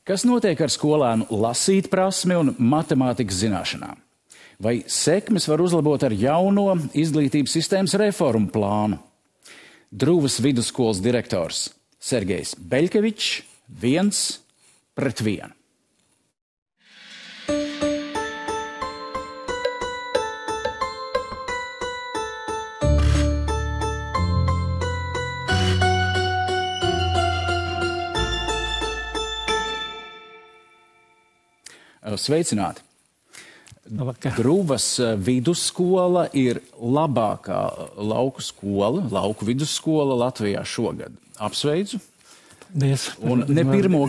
Kas notiek ar skolēnu lasīt prasmi un matemātikas zināšanām? Vai sekmes var uzlabot ar jauno izglītības sistēmas reformu plānu? Drūvas vidusskolas direktors Sergejs Beļkevičs 1-1. Sveicināti! Drūvas vidusskola ir labākā lauku vidusskola Latvijā šogad. Apsveicu! Un ne pirmo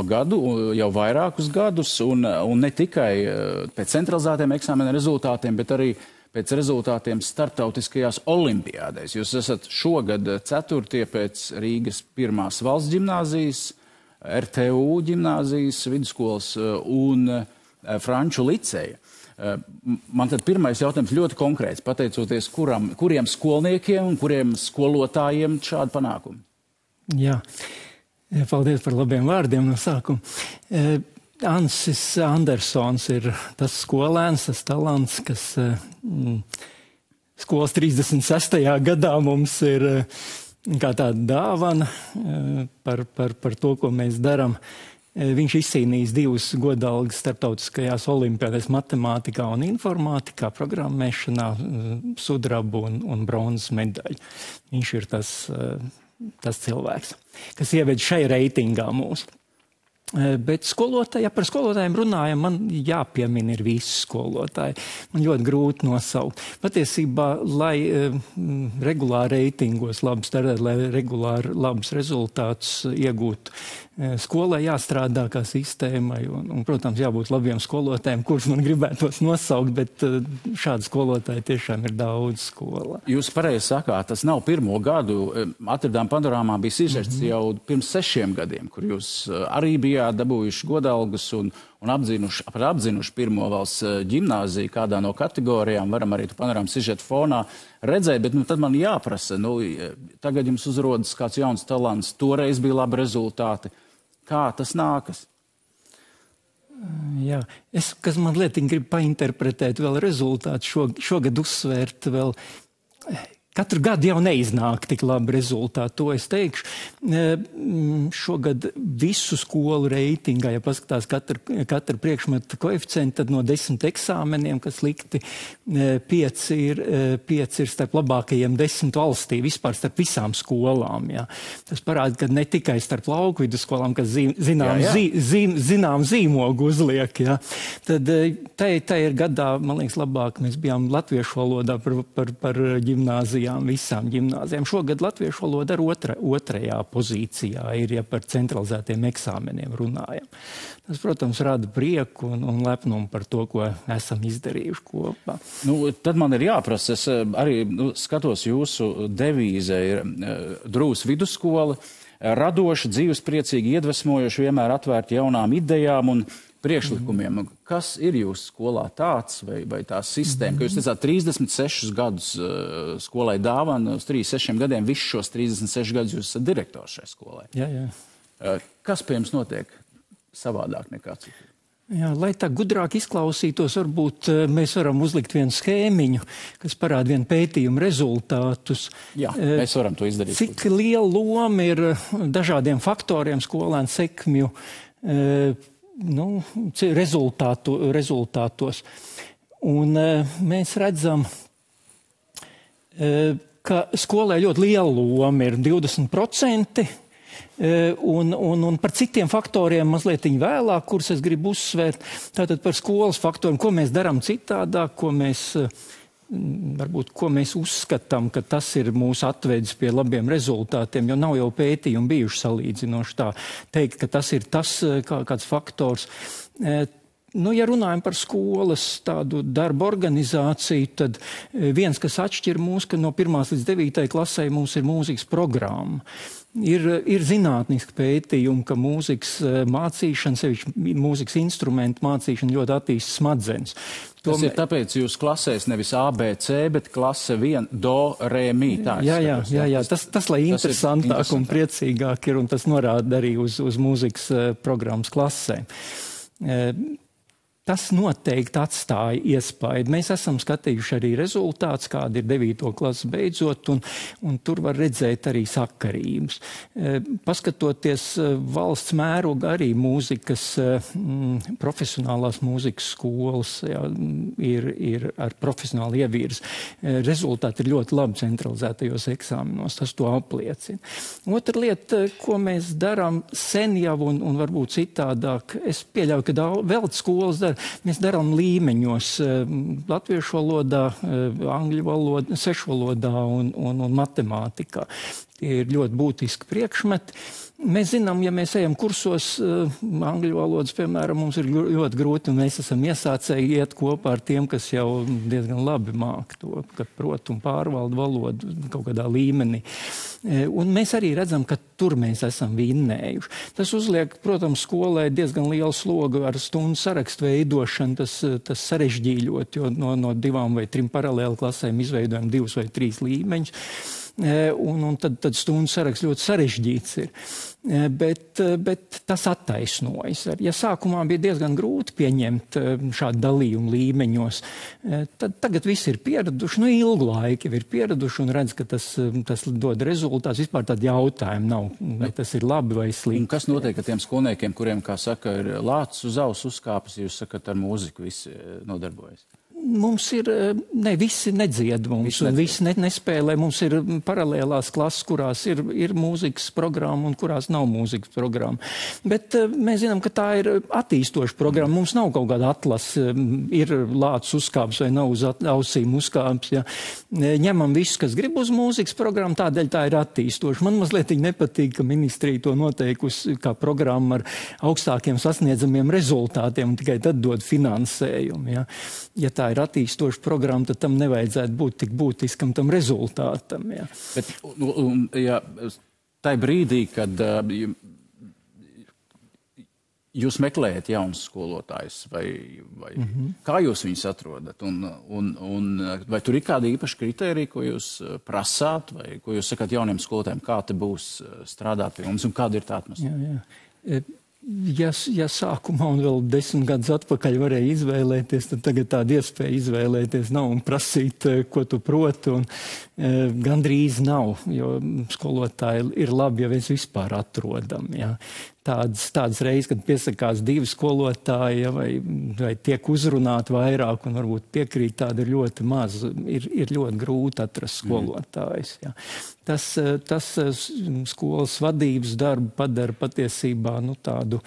gadu, jau vairākus gadus, un ne tikai pēc centralizētiem eksāmena rezultātiem, bet arī pēc rezultātiem starptautiskajās olimpiādēs. Jūs esat šogad 4. pēc Rīgas 1. valsts ģimnāzijas, RTU ģimnāzijas, vidusskolas un Franču liceja. Man tad pirmais jautājums ļoti konkrēts, pateicoties kuriem skolniekiem un kuriem skolotājiem šādi panākumi? Jā, paldies par labiem vārdiem no sākuma. Ansis Andersons ir tas skolēns, tas talants, kas skolas 36. gadā mums ir kā tāda dāvana par to, ko mēs darām. Viņš izcīnījis 2 godalgas starptautiskajās olimpiādēs matemātikā un informātikā, programmēšanā, sudrabu un bronzas medaļu. Viņš ir tas cilvēks, kas ieved šai reitingā mūsu. Bet par skolotājiem runājam, man jāpiemina ir visi skolotāji. Man ļoti grūti nosaukt. Patiesībā, lai regulāri reitingos labi startēt, lai regulāri labus rezultātus iegūtu, skolai jāstrādā kā sistēmai un, protams, jābūt labiem skolotājiem, kurus man gribētos nosaukt, bet šādi skolotāji tiešām ir daudz skolā. Jūs pareizi sakāt, tas nav pirmo gadu. Atradām panorāmā bija sižets jau pirms 6 gadiem, kur jūs arī bijāt dabūjuši godalgas un apzinuši 1. valsts ģimnāziju kādā no kategorijām. Varam arī tu panorāmu sižetu fonā redzēt, bet tad man jāprasa, tagad jums uzrodas kāds jauns talants, toreiz bija labi rezultāti. Kā tas nākas? Jā, kas man lietiņ grib painterpretēt vēl rezultātu, šogad uzsvērt vēl. Katru gadu jau neiznāk tik labi rezultāti, to es teikšu. Šogad visu skolu reitingā, ja paskatās katra priekšmeta koeficienti, tad no 10 eksāmeniem, kas likti, 5 ir starp labākajiem 10 valstī, vispār starp visām skolām. Jā. Tas parāda, ka ne tikai starp lauku vidusskolām, kas zinām zīmogu uzliek. Jā. Tad tā ir gadā, man liekas, labāk. Mēs bijām latviešu valodā par ģimnāziju. Visām ģimnāzijām. Šogad latviešu valoda ar otrajā pozīcijā ir, ja par centralizētiem eksāmeniem runājam. Tas, protams, rada prieku un lepnumu par to, ko esam izdarījuši kopā. Tad man ir jāprasa, es arī skatos jūsu devīze ir Drūvas vidusskola, radoša, dzīvespriecīgi, iedvesmojoši, vienmēr atvērti jaunām idejām un priekšlikumiem. Kas ir jūsu skolā tāds vai tā sistēma, ka jūs teicāt 36 gadus skolai dāvana, uz 36 gadiem, visus šos 36 gadus jūs esat direktors šai skolai? Jā. Kas pie jums notiek savādāk nekā citur? Jā, lai tā gudrāk izklausītos, varbūt mēs varam uzlikt vienu schēmiņu, kas parāda vienu pētījumu rezultātus. Jā, mēs varam to izdarīt. Cik liela loma ir dažādiem faktoriem skolēnu sekmju rezultātos. Un mēs redzam, ka skolai ļoti liela loma ir 20%, un par citiem faktoriem mazliet vēlāk, kurus es gribu uzsvērt. Tātad par skolas faktoriem, ko mēs darām citādāk, ko mēs uzskatām, ka tas ir mūs atvedis pie labiem rezultātiem, jo nav jau pētījumi bijuši salīdzinoši tā teikt, ka tas ir kāds faktors. Nu, ja runājam par skolas tādu darbu organizāciju, tad viens, kas atšķir mūs, ka no 1. līdz 9. klasē mums ir mūzikas programma. Ir zinātniski pētījumi, ka mūzikas mācīšana, sevišķi mūzikas instrumentu mācīšana ļoti attīsta smadzenes. Tas ir tāpēc jūs klasēs nevis A, B, C, bet klase 1, do, re, mi. Jā. Tas lai interesantāk un priecīgāk ir, un tas norāda arī uz mūzikas programmas klasēm. Tas noteikti atstāja iespaidu. Mēs esam skatījuši arī rezultātus, kādi ir 9. klases beidzot, un tur var redzēt arī sakarības. Paskatoties valsts mēroga arī mūzikas, profesionālās mūzikas skolas, jā, ir ar profesionālu ievirzi. Rezultāti ir ļoti labi centralizētajos eksāmenos, tas to apliecina. Otra lieta, ko mēs darām sen jau un varbūt citādāk, es pieļauju, ka vēl skolas dara, mēs darām līmeņos latviešu valodā, angļu valodā, sešu valodā un matemātikā. Tie ir ļoti būtiski priekšmeti. Mēs zinām, ja mēs ejam kursos angļu valodas, piemēram, mums ir ļoti grūti, un mēs esam iesācēji iet kopā ar tiem, kas jau diezgan labi māk to, ka prot un pārvalda valodu kaut kādā līmenī. Un mēs arī redzam, ka tur mēs esam vinnējuši. Tas uzliek, protams, skolai diezgan lielu slogu ar stundu sarakstu veidošanu, tas sarežģīļot, jo no 2 vai 3 paralēli klasēm izveidojam 2 vai 3 līmeņus. Un tad stundu saraksts ļoti sarežģīts ir. Bet tas attaisnojas. Ja sākumā bija diezgan grūti pieņemt šādu dalījumu līmeņos, tad tagad visi ir pieraduši, ilgu laiku ir pieraduši un redz, ka tas dod rezultātus. Vispār tādu jautājumu nav, vai tas ir labi vai slikti. Un kas notiek ar tiem skolniekiem, kuriem, kā saka, ir lācis uz auss uzkāpis, jūs sakat, ar mūziku visi nodarbojas? Mums ir, visi nedzied mums, visi nespēlē. Mums ir paralēlās klases, kurās ir mūzikas programma un kurās nav mūzikas programma. Bet mēs zinām, ka tā ir attīstoša programma. Mums nav kaut kāda atlase, ir lācis uzkāps vai nav uz ausīm uzkāps. Ja. Ņemam visus, kas grib uz mūzikas programmu, tādēļ tā ir attīstoša. Man mazliet nepatīk, ka ministrija to noteikusi kā programma ar augstākiem sasniedzamiem rezultātiem un tikai tad dod finansējumu. Ja tā ir attīstoša programma, tad tam nevajadzētu būt tik būtiskam tam rezultātam. Jā. Bet, tai brīdī, kad jūs meklējat jaunus skolotājus, vai kā jūs viņus atrodat? Un vai tur ir kādi īpaši kriteriji, ko jūs prasāt, vai ko jūs sakat jauniem skolotājiem, kā te būs strādāt pie mums un kāda ir tā atmosfēra? Jā. Ja sākumā un vēl 10 gadus atpakaļ varēja izvēlēties, tad tagad tāda iespēja izvēlēties nav un prasīt, ko tu proti, un gandrīz nav, jo skolotāji ir labi, ja mēs vispār atrodam. Ja. Tādas reizes, kad piesakās 2 skolotāji, vai tiek uzrunāti vairāk un varbūt piekrīt, tāda ir ļoti maz. Ir ļoti grūti atrast skolotājus. Ja. Tas skolas vadības darbu padara patiesībā tādu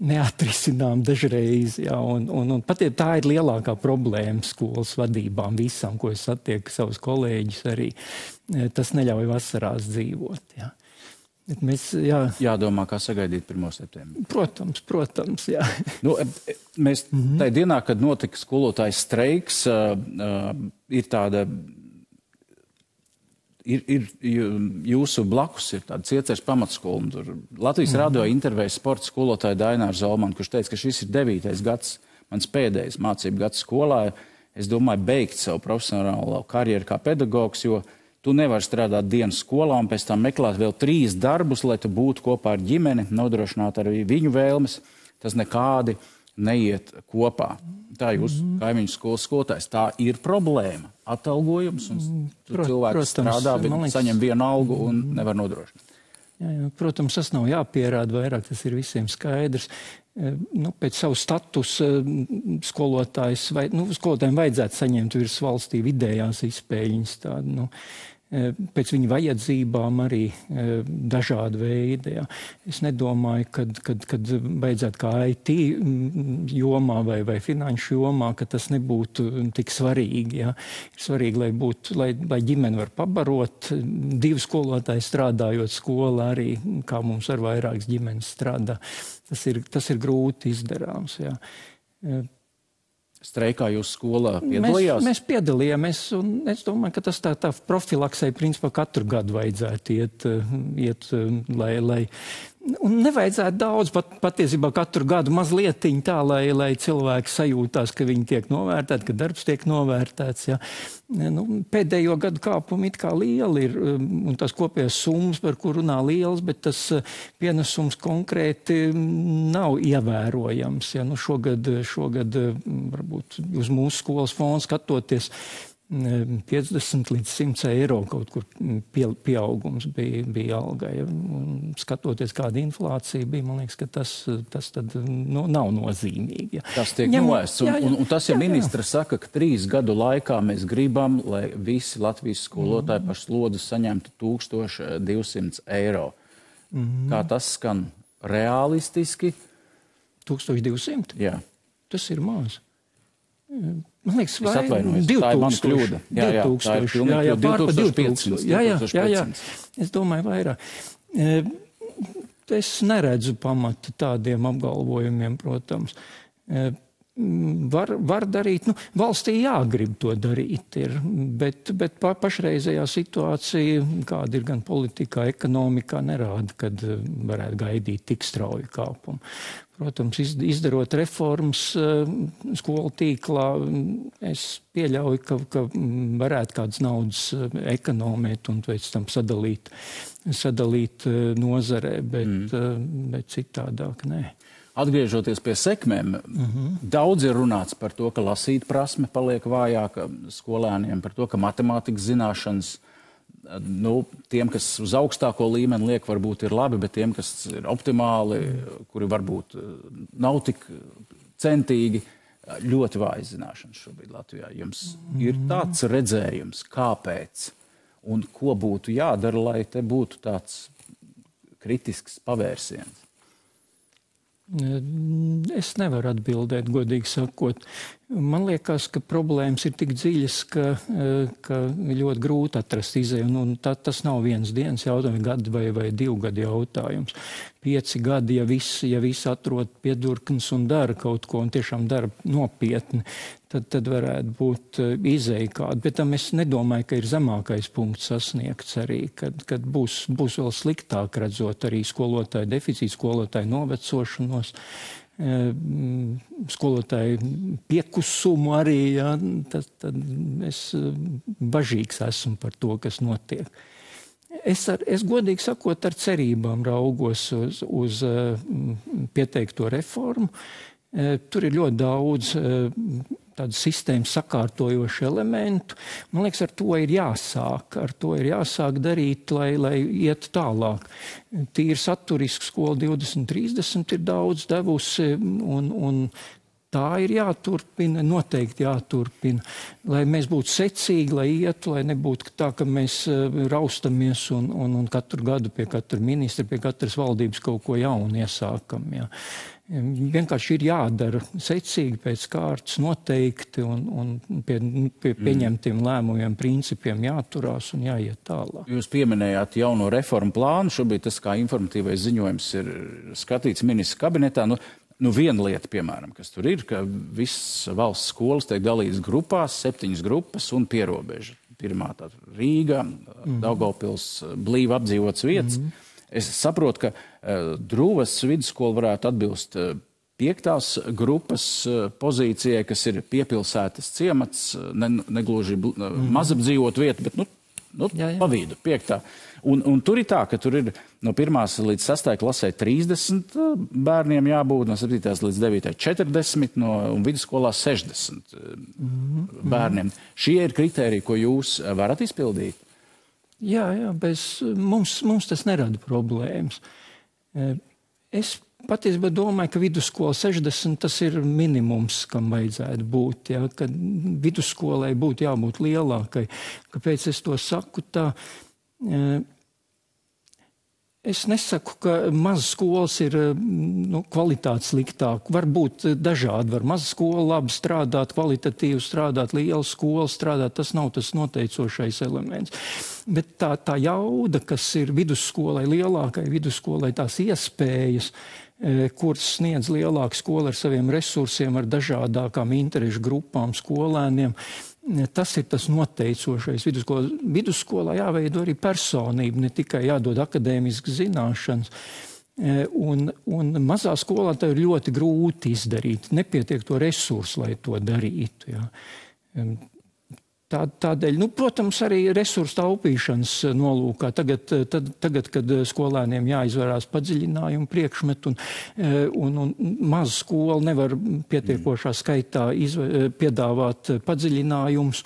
neatrisinām dažreiz. Ja, un tā ir lielākā problēma skolas vadībām visam, ko es satieku savus kolēģus arī. Tas neļauj vasarās dzīvot. Ja. Mēs, jādomā, kā sagaidīt 1. septembri. Protams, jā. Mēs tajā dienā, kad notika skolotājs streiks, ir tāda, ir jūsu blakus ir tāda Cieceres pamatskola. Tur Latvijas radio intervēja sporta skolotāju Daināru Zolmanu, kurš teica, ka šis ir 9. gads, mans pēdējais mācību gads skolā. Es domāju, beigt savu profesionālo karjeru kā pedagogs, jo tu nevari strādāt dienas skolā un pēc tam meklēt vēl 3 darbus, lai tu būtu kopā ar ģimeni, nodrošināt arī viņu vēlmes. Tas nekādi neiet kopā. Tā jūs, kaimiņu skolas skolotājs, tā ir problēma. Atalgojums, un cilvēks strādā, bet saņem vienu algu un nevar nodrošināt. Jā, protams, tas nav jāpierāda vairāk, tas ir visiem skaidrs. Pēc savu statusu skolotājiem vajadzētu saņemt virs valstī vidējās izspēļņas tādu, pēc viņa vajadzībām arī dažādi veidi. Ja. Es nedomāju, kad beidzot kā IT jomā vai finanšu jomā, ka tas nebūtu tik svarīgi. Ja. Ir svarīgi, lai ģimene var pabarot, 2 skolotāji strādājot skolā arī, kā mums ar vairākas ģimenes strādā. Tas ir grūti izdarāms. Ja. Streikā jūs skolā piedalījās? Mēs piedalījāmies, un es domāju, ka tas tā profilaksei principā katru gadu vajadzētu iet lai un nevajadzētu daudz, patiesībā katru gadu mazlietiņ tā, lai cilvēki sajūtās, ka viņi tiek novērtēti, ka darbs tiek novērtēts. Ja. Pēdējo gadu kāpumi it kā lieli ir, un tas kopējās summas, par kur runā liels, bet tas pienesums konkrēti nav ievērojams. Ja. Šogad varbūt uz mūsu skolas fondu skatoties, 50 līdz 100 eiro kaut kur pieaugums bija algai. Skatoties, kāda inflācija bija, man liekas, ka tas tad nav nozīmīgi. Ja. Tas tiek noēsts. Un tas, ja ministra saka, ka 3 gadu laikā mēs gribam, lai visi Latvijas skolotāji par slodzi saņemtu 1200 eiro. Kā tas skan realistiski? 1200? Jā. Tas ir maz. Man liekas, es atvainojos, 2000, tā ir mana kļūda. Jā, tā ir pilnīgi 2500. Jā. Es domāju vairāk. Es neredzu pamatu tādiem apgalvojumiem, protams. Var darīt, valstī jāgrib to darīt, bet pašreizējā situācija, kāda ir gan politikā, ekonomikā, nerāda, kad varētu gaidīt tik strauju kāpumu. Protams, izdarot reformas skolu tīklā, es pieļauju, ka varētu kādas naudas ekonomēt un pēc tam sadalīt nozarē, bet citādāk nē. Atgriežoties pie sekmēm, daudz ir runāts par to, ka lasīt prasme paliek vājāka skolēniem, par to, ka matemātikas zināšanas, tiem, kas uz augstāko līmeni liek, varbūt ir labi, bet tiem, kas ir optimāli, kuri varbūt nav tik centīgi, ļoti vājas zināšanas šobrīd Latvijā. Jums ir tāds redzējums, kāpēc un ko būtu jādara, lai te būtu tāds kritisks pavērsiens? Es nevaru atbildēt, godīgi sakot. Man liekas, ka problēmas ir tik dziļas, ka ļoti grūti atrast izēju. Un tas nav vienas dienas jautājums, gadu vai 2 gadu jautājums. 5 gadi, ja viss atrod piedurknes un dara kaut ko, un tiešām dara nopietni, tad varētu būt izēja kāda. Bet tam es nedomāju, ka ir zemākais punkts sasniegts arī, kad būs vēl sliktāk redzot arī skolotāju deficītu, skolotāju novecošanos, skolotāju piekusumu arī. Ja, tad es bažīgs esmu par to, kas notiek. Es godīgi sakot ar cerībām raugos uz pieteikto reformu. Tur ir ļoti daudz tādu sistēmu sakārtojošu elementu. Man liekas, ar to ir jāsāk darīt, lai iet tālāk. Tīri saturiski skola 2030 ir daudz devusi un tā ir jāturpina, noteikti jāturpina, lai mēs būtu secīgi, lai ietu, lai nebūtu tā, ka mēs raustamies un katru gadu pie katra ministra, pie katras valdības kaut ko jaunu iesākam. Jā. Vienkārši ir jādara secīgi pēc kārtas noteikti un pie pieņemtiem lēmumiem, principiem jāturās un jāiet tālāk. Jūs pieminējāt jauno reformu plānu. Šobrīd tas kā informatīvais ziņojums ir skatīts ministra kabinetā. Viena lieta, piemēram, kas tur ir, ka visas valsts skolas tiek dalītas grupās, 7 grupas un pierobeža. Pirmā tāda Rīga, Daugavpils, blīvi apdzīvotas vietas. Es saprotu, ka Druvas vidusskola varētu atbilst 5. grupas pozīcijai, kas ir piepilsētas ciemats, negluži mazapdzīvot vieta, bet pa vidu, 5. Un tur ir tā, ka tur ir no 1. līdz 6. klasē 30 bērniem jābūt, no 7. līdz 9. 40 un vidusskolā 60 bērniem. Šie ir kritēriji, ko jūs varat izpildīt? Jā, mums tas nerada problēmas. Es patiesībā domāju, ka vidusskola 60 tas ir minimums, kam vajadzētu būt. Ja, ka vidusskolai būtu jābūt lielākai. Kāpēc es to saku tā? Es nesaku, ka mazas skolas ir kvalitāte sliktāk. Var būt dažādi. Var maza skola labi strādāt, kvalitatīvi strādāt, liela skola strādāt. Tas nav tas noteicošais elements. Bet tā jauda, kas ir vidusskolai, lielākai vidusskolai, tās iespējas, kuras sniedz lielāka skola ar saviem resursiem, ar dažādākām interešu grupām, skolēniem, tas ir tas noteicošais. Vidusskolā jāveido arī personība, ne tikai jādod akadēmiskas zināšanas. Un mazā skolā tā ir ļoti grūti izdarīt. Nepietiek to resursu, lai to darītu. Ja. Tādēļ, protams, arī resursu taupīšanas nolūkā. Tagad, kad skolēniem jāizvērās padziļinājumu priekšmetu un maza skola nevar pietiekošā skaitā piedāvāt padziļinājumus,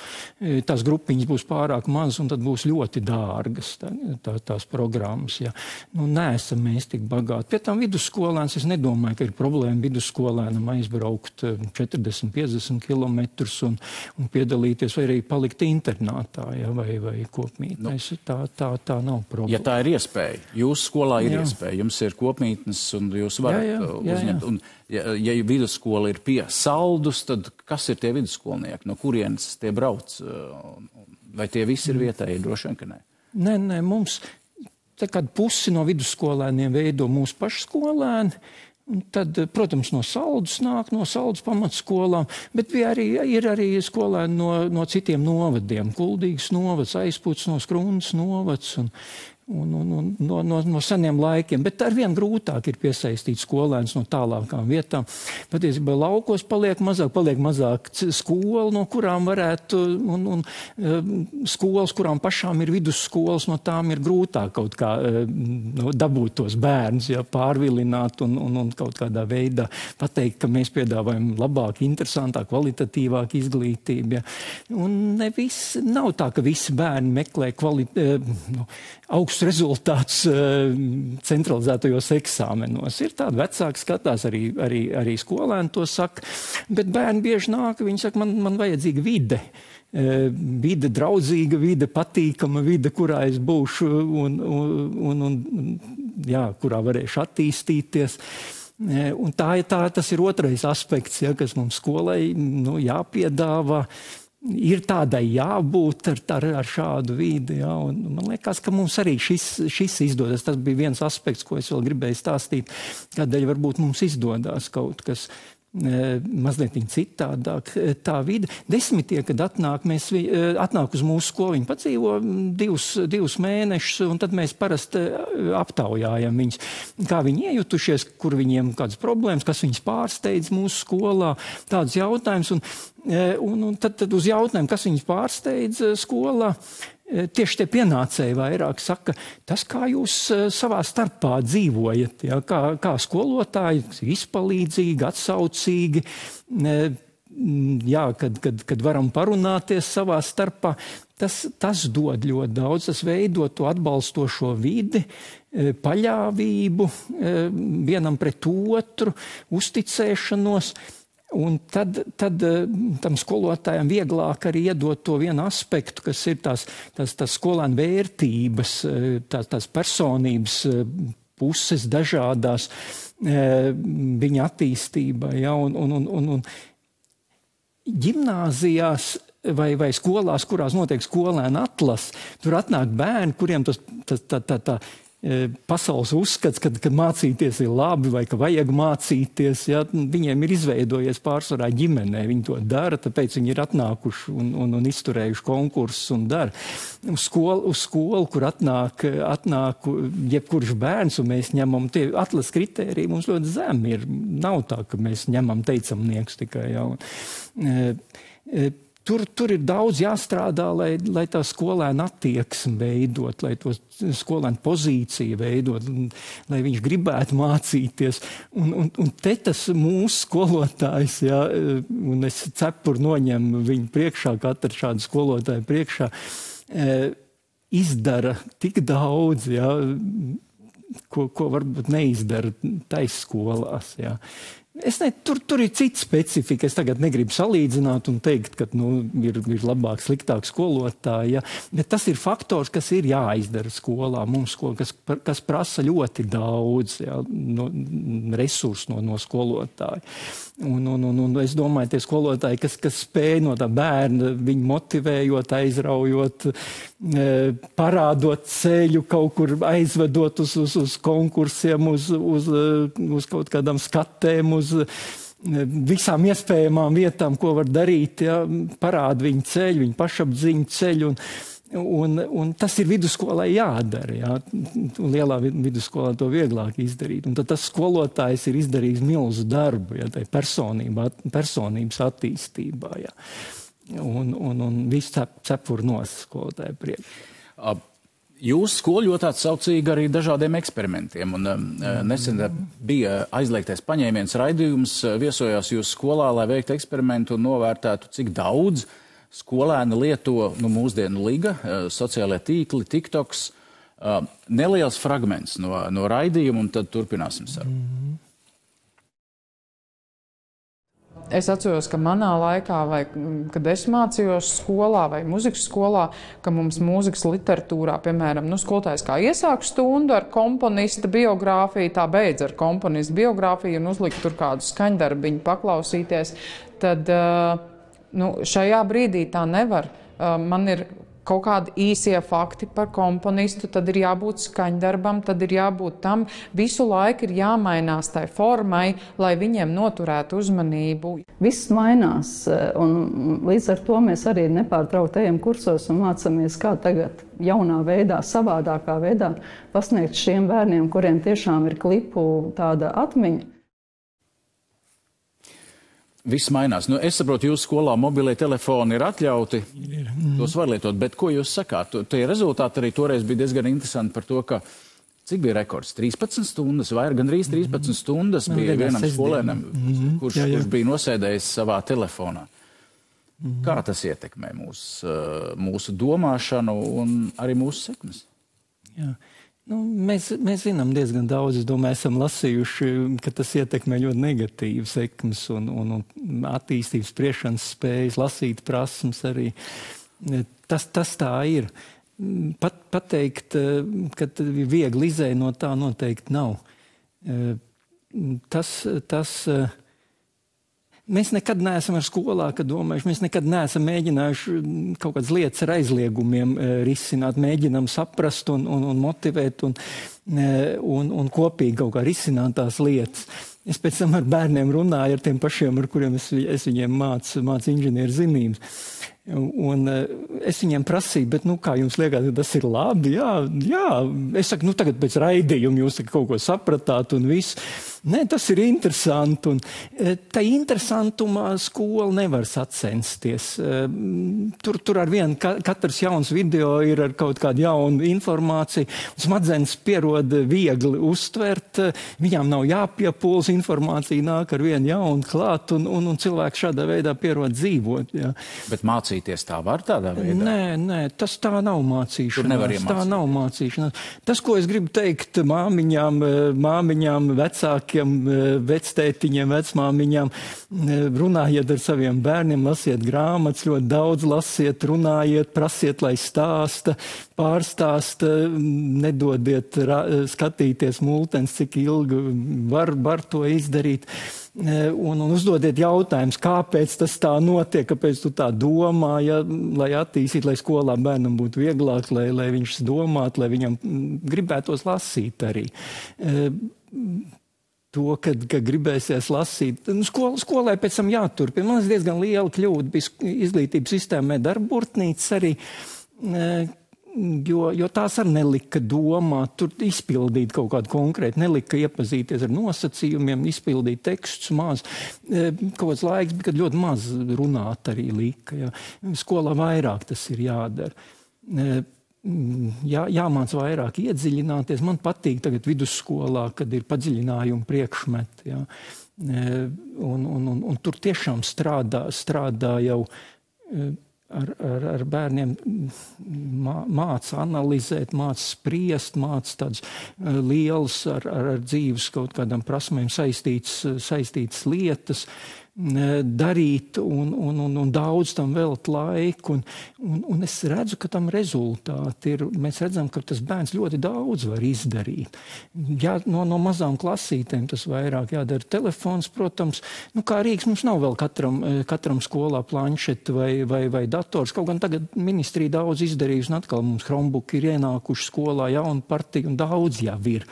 tās grupiņas būs pārāk mazas un tad būs ļoti dārgas tās programmas. Ja. Neesam mēs tik bagāti. Pie tam vidusskolēns, es nedomāju, ka ir problēma vidusskolēnam aizbraukt 40-50 kilometrus un piedalīties vai arī palikt internātā, ja, vai kopmītnēs. Tā nav problēma. Ja tā ir iespēja, jūsu skolā ir iespēja, jums ir kopmītnes un jūs varat uzņemt. Un, ja vidusskola ir pie Saldus, tad kas ir tie vidusskolnieki? No kurienes tie brauc? Vai tie visi ir vietēji? Droši vien, ka nē. Nē, mums kādu pusi no vidusskolēniem veido mūsu paši skolēni. Tad, protams, no Saldus nāk, no Saldus pamatskolām, bet ir arī skolēni no citiem novadiem. Kuldīgas novads, Aizputs no Skrundas novads un no seniem laikiem. Bet arvien grūtāk ir piesaistīt skolēnus no tālākām vietām. Patiesībā laukos paliek mazāk skolu, no kurām varētu, un skolas, kurām pašām ir vidusskolas, no tām ir grūtāk kaut kā dabūt tos bērnus, ja, pārvilināt un kaut kādā veidā pateikt, ka mēs piedāvājam labāk, interesantāk, kvalitatīvāk izglītību. Ja. Un nav tā, ka visi bērni meklē augstus rezultātus centralizētajos eksāmenos. Ir tādi vecāki skatās, arī skolēni to saka, bet bērni bieži nāk, viņi saka, man vajadzīga vide. Vide draudzīga, vide patīkama, vide, kurā es būšu kurā varēšu attīstīties. Un tas ir otrais aspekts, ja, kas mums skolai jāpiedāvā. Ir tādai jābūt ar šādu vidi. Ja, un man liekas, ka mums arī šis izdodas. Tas bija viens aspekts, ko es vēl gribēju stāstīt, kādēļ varbūt mums izdodas kaut kas mazliet citādāk. Tā vide. 10, kad atnāk uz mūsu skolu, viņi padzīvo 2 mēnešus, un tad mēs parasti aptaujājam viņus, kā viņi iejutušies, kur viņiem kādas problēmas, kas viņus pārsteidz mūsu skolā, tādus jautājumus. Un tad uz jautājumu, kas viņus pārsteidz skolā, tieši tie pienācēji vairāk saka, tas, kā jūs savā starpā dzīvojat, ja, kā skolotāji, izpalīdzīgi, atsaucīgi, kad varam parunāties savā starpā, tas dod ļoti daudz, tas veido to atbalstošo vidi, paļāvību vienam pret otru, uzticēšanos. Un tad tam skolotājam vieglāk arī iedot to vienu aspektu, kas ir tās skolēnu vērtības, tās personības puses dažādās viņa attīstībā. Ja, un ģimnāzijās vai skolās, kurās notiek skolēnu atlase, tur atnāk bērni, kuriem tā pasaules uzskats, ka mācīties ir labi vai ka vajag mācīties, ja, viņiem ir izveidojies pārsvarā ģimenē, viņi to dara, tāpēc viņi ir atnākuši un izturējuši konkursus un dara. Uz skolu, kur atnāk jebkurš bērns, un mēs ņemam tie atlases kritēriji, mums ļoti zemi ir. Nav tā, ka mēs ņemam teicamnieks tikai. Ja, Tur ir daudz jāstrādā, lai tā skolēna attieksme veidot, lai to skolēnu pozīciju veidot, lai viņš gribētu mācīties. Un te tas mūsu skolotājs, ja, un es cepuru noņemu viņu priekšā, katru šādu skolotāju priekšā, izdara tik daudz, ja, ko varbūt neizdara taisskolās. Jā. Tur ir cita specifika. Es tagad negribu salīdzināt un teikt, ka ir labāk, sliktāk skolotāji. Ja? Bet tas ir faktors, kas ir jāizdara skolā. Mums, kas prasa ļoti daudz resursu no skolotāja. Un es domāju, tie skolotāji, kas spēj no tā bērna, viņu motivējot, aizraujot, parādot ceļu, kaut kur aizvedot uz konkursiem, uz kaut kādām skatēm, uz visām iespējamām vietām, ko var darīt, ja, parāda viņu ceļu, viņu pašapziņu ceļu, un tas ir vidusskolai jādara, ja. Lielā vidusskolā to vieglāk izdarīt, un tad tas skolotājs ir izdarījis milzu darbu, ja, tai personības attīstībā, ja. Un viss cepur nos skolotāju priekš. Jūsu skola ļoti atsaucīga arī dažādiem eksperimentiem, un nesen bija aizliegtais paņēmiens raidījums, viesojās jūsu skolā, lai veiktu eksperimentu un novērtētu, cik daudz skolēni lieto mūsdienu liga, sociālajie tīkli, TikToks, neliels fragments no raidījuma, un tad turpināsim sarunu. Es atceros, ka manā laikā, vai kad es mācījos skolā vai muzikas skolā, ka mums mūzikas literatūrā, piemēram, skolotājs kā iesāk stundu ar komponista biogrāfiju, tā beidz ar komponista biogrāfiju un uzlikt tur kādu skaņdarbiņu paklausīties, tad šajā brīdī tā nevar. Man ir kaut kādi īsie fakti par komponistu, tad ir jābūt skaņdarbam, tad ir jābūt tam. Visu laiku ir jāmainās tai formai, lai viņiem noturētu uzmanību. Viss mainās, un līdz ar to mēs arī nepārtraukti ejam kursos un mācāmies, kā tagad jaunā veidā, savādākā veidā pasniegt šiem bērniem, kuriem tiešām ir klipu tāda atmiņa. Viss mainās. Es saprotu, jūsu skolā mobilie telefoni ir atļauti, tos var lietot, bet ko jūs sakāt? Tie rezultāti arī toreiz bija diezgan interesanti par to, ka cik bija rekords? 13 stundas, vai gandrīz 13 stundas bija vienam skolēnam, kurš bija nosēdējis savā telefonā. Kā tas ietekmē mūsu domāšanu un arī mūsu sekmes? Jā. Mēs zinām diezgan daudz, es domāju, esam lasījuši, ka tas ietekmē ļoti negatīvi sekmes un attīstības spriešanas spējas, lasīt prasmes arī. Tas tā ir. Pateikt, ka viegli izēja no tā noteikti nav. Mēs nekad neesam ar skolā, kad domājuši, mēs nekad neesam mēģinājuši kaut kādas lietas ar aizliegumiem risināt, mēģinām saprast un motivēt un kopīgi kaut kā risināt tās lietas. Es pēc tam ar bērniem runāju, ar tiem pašiem, ar kuriem es viņiem mācu inženieru zinības. Un es viņiem prasīju, bet kā jums liekas, tas ir labi? Jā. Es saku, tagad pēc raidījuma jūs kaut ko sapratāt un viss. Nē, tas ir interesanti. Un tā interesantumā skola nevar sacensties. Tur ar vienu katrs jauns video ir ar kaut kādu jaunu informāciju. Smadzenes pierod viegli uztvert, viņām nav jāpiepūls, informācija nāk ar vienu jaunu klāt, un cilvēks šādā veidā pierod dzīvot. Jā. Bet mācīties tā var tādā veidā? Nē, tas tā nav mācīšanās. Tur nevar iemācīt. Tā nav mācīšanās. Tas, ko es gribu teikt māmiņām, vecākiem, vectētiņiem, vecmāmiņām, runājiet ar saviem bērniem, lasiet grāmatas, ļoti daudz lasiet, runājiet, prasiet, lai stāsta, pārstāsta, nedodiet skatīties multens, cik ilgi var to izdarīt. Un uzdodiet jautājumus, kāpēc tas tā notiek, kāpēc tu tā domā, lai attīstītu, lai skolā bērnam būtu vieglāk, lai viņš domātu, lai viņam gribētos lasīt arī. To, kad gribēsies lasīt. Skolai pēc tam jāturpina. Man diezgan liela kļūda bija izglītības sistēmē darburtnīcas arī, jo tās arī nelika domāt, tur izpildīt kaut kādu konkrētu, nelika iepazīties ar nosacījumiem, izpildīt tekstus maz. Kaut kāds laiks bija, kad ļoti maz runāt arī lika. Ja. Skolā vairāk tas ir jādara. Jāmāc vairāk iedziļināties. Man patīk tagad vidusskolā, kad ir padziļinājumi priekšmeti. Ja. Un tur tiešām strādā jau ar bērniem māca analizēt, māca spriest, māca tādas lielas ar dzīves kaut kādām prasmēm saistītas lietas, darīt un daudz tam velt laiku. Un es redzu, ka tam rezultāti ir. Mēs redzam, ka tas bērns ļoti daudz var izdarīt. Jā, no mazām klasītēm tas vairāk jādara. Telefons, protams, kā Rīgas mums nav vēl katram skolā planšeti vai dators. Kaut gan tagad ministrija daudz izdarījusi, un atkal mums Chromebook ir ienākuši skolā, jauna partija, un daudz jau ir.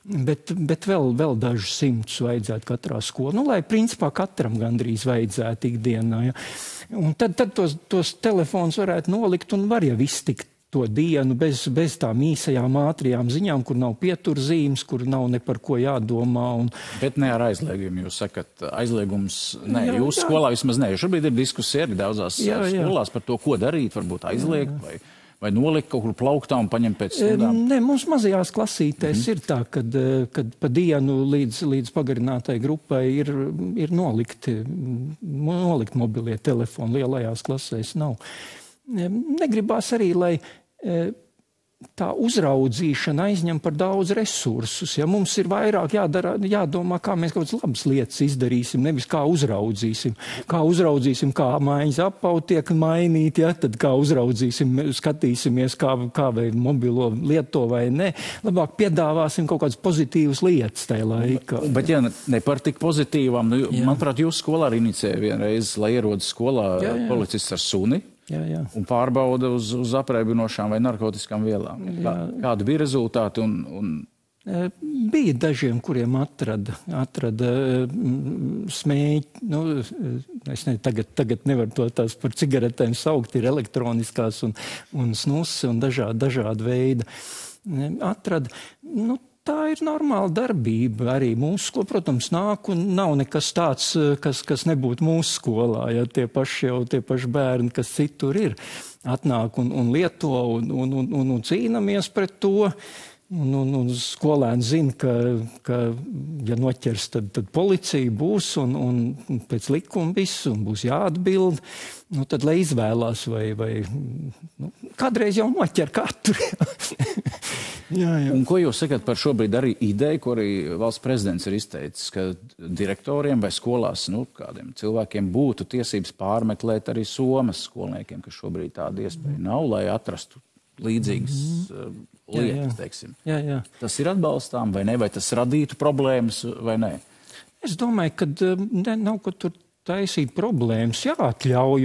Bet vēl dažus simtus vajadzētu katrā skolā. Lai principā katram gandrīz vajadzētu ikdienā. Ja. Un tad tos telefons varētu nolikt un var jau iztikt to dienu bez tām īsajām ātrijām ziņām, kur nav pieturzīmes, kur nav ne par ko jādomā. Bet ne ar aizliegumu. Jūs sakat, aizliegums, nē, jūsu skolā vismaz nē. Šobrīd ir diskusija arī daudzās skolās par to, ko darīt, varbūt aizliegt vai nolikt kaut kur plauktā un paņemt pēc stundām? Nē, mums mazajās klasītēs ir tā, kad pa dienu līdz pagarinātai grupai ir nolikt mobilie telefoni, lielajās klasēs nav. Negribās arī, lai tā uzraudzīšana aizņem par daudz resursus. Ja mums ir vairāk jādomā, kā mēs kaut kādas labas lietas izdarīsim, nevis kā uzraudzīsim. Kā mājas apaut tiek mainīt, ja? Tad kā uzraudzīsim, skatīsimies, kā vai mobilo lieto vai ne. Labāk piedāvāsim kaut kādas pozitīvas lietas tajā laikā. Bet ja ne par tik pozitīvām, manuprāt, jūs skolā arī inicēja vienreiz, lai ierodas skolā policists ar suni. Un pārbauda uz apreibinošām vai narkotiskām vielām. Kādi bija rezultāti? Bija dažiem, kuriem atrada smēķi. Es tagad nevaru tās par cigaretēm saukt, ir elektroniskās un snusi un dažādi veidi. Atrada. Tā ir normāla darbība arī mūsu skolā. Protams, nāk un nav nekas tāds, kas nebūtu mūsu skolā. Ja tie paši bērni, kas citur ir, atnāk un lieto un cīnamies pret to. Un skolēni zina, ka ja noķers, tad policija būs un pēc likuma viss un būs jāatbild. Tad, lai izvēlās vai kādreiz jau noķer katru. Jā. Un ko jūs sakat par šobrīd arī ideju, ko arī valsts prezidents ir izteicis, ka direktoriem vai skolās, kādiem cilvēkiem būtu tiesības pārmeklēt arī somas skolniekiem, ka šobrīd tāda iespēja nav, lai atrastu līdzīgas lietas, teiksim. Jā. Tas ir atbalstām vai ne, vai tas radītu problēmas vai ne? Es domāju, ka nav ko tur taisīt problēmas, jāatļauj,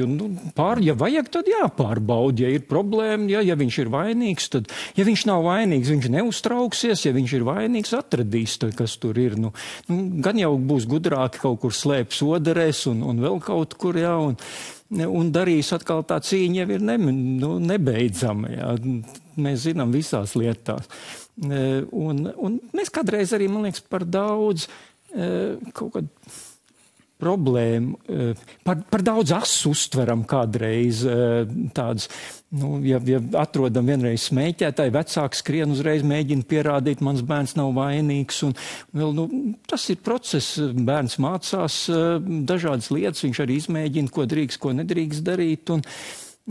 ja vajag, tad jāpārbauda, ja ir problēma, ja viņš ir vainīgs, tad, ja viņš nav vainīgs, viņš neuztrauksies, ja viņš ir vainīgs, atradīs, kas tur ir. Gan jau būs gudrāki kaut kur slēpt soderēs un vēl kaut kur, un darīs atkal tā cīņa jau ir nebeidzama, Mēs zinām visās lietās. Un mēs kādreiz arī, man liekas, par daudz kaut kādu problēmu, par daudz asu uztveram kādreiz tādas, ja atrodam vienreiz smēķētāji, vecāki skrien uzreiz mēģina pierādīt, mans bērns nav vainīgs, un vēl, tas ir process, bērns mācās dažādas lietas, viņš arī izmēģina, ko drīkst, ko nedrīkst darīt,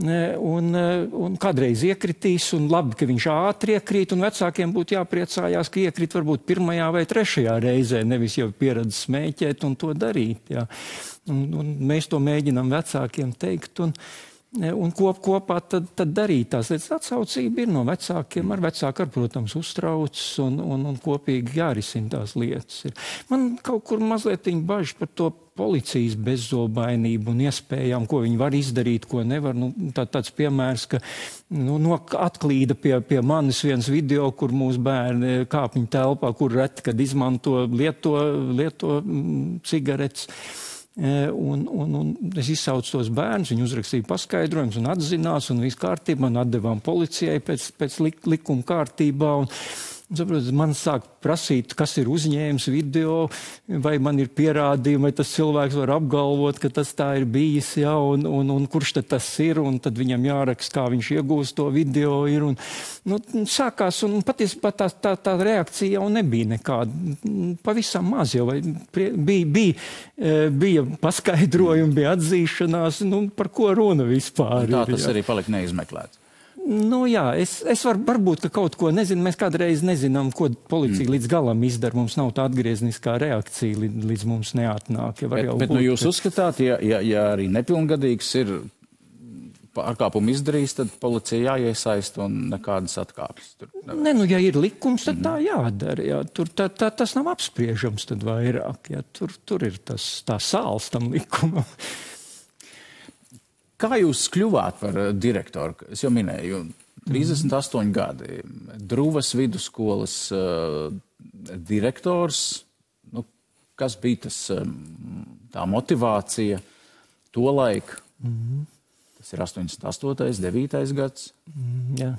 un kādreiz iekritīs, un labi, ka viņš ātri iekrīt, un vecākiem būtu jāpriecājās, ka iekrīt varbūt 1. vai 3. reizē, nevis jau pieredz smēķēt un to darīt. Un mēs to mēģinām vecākiem teikt, un kopā tad darīt tās lietas. Atsaucība ir no vecākiem, ar vecāku, protams, uztrauc, un kopīgi jārisina tās lietas. Man kaut kur mazliet bažas par to policijas bezzobainību un iespējām, ko viņi var izdarīt, ko nevar. Tāds piemērs, ka atklīda pie manis viens video, kur mūsu bērni kāpņu telpā, kur reti, kad izmanto lieto cigaretes. Un es izsaucu tos bērnus, viņi uzrakstīja paskaidrojumus un atzinās, un viss kārtībā, un atdevām policijai pēc likuma kārtībā. Saprot, man sāk prasīt, kas ir uzņēmis video, vai man ir pierādījumi, vai tas cilvēks var apgalvot, ka tas tā ir bijis, ja, un kurš tad tas ir, un tad viņam jāraksta, kā viņš iegūst to video ir. Un, sākās, un patiesībā tā reakcija jau nebija nekāda. Pavisam maz jau bija paskaidrojumi, bija atzīšanās, par ko runa vispār. Tā tas arī palika neizmeklēts. Jā, es varbūt, ka kaut ko nezinu, mēs kādreiz nezinām, ko policija līdz galam izdara, mums nav tā atgriezniskā reakcija, līdz mums neatnāk. Ja bet jūs uzskatāt, ja arī nepilngadīgs ir pārkāpumu izdarījis, tad policija jāiesaist un nekādas atkāpes. Ja ir likums, tad tā jādara. Jā. Tur tas nav apspriežams tad vairāk. Jā. Tur ir tā sāls tam likumam. Kā jūs kļuvāt par direktoru? Es jau minēju, 38 gadi, Druvas vidusskolas direktors. Kas bija tā motivācija to laiku? Tas ir 88. 9. gads. Jā.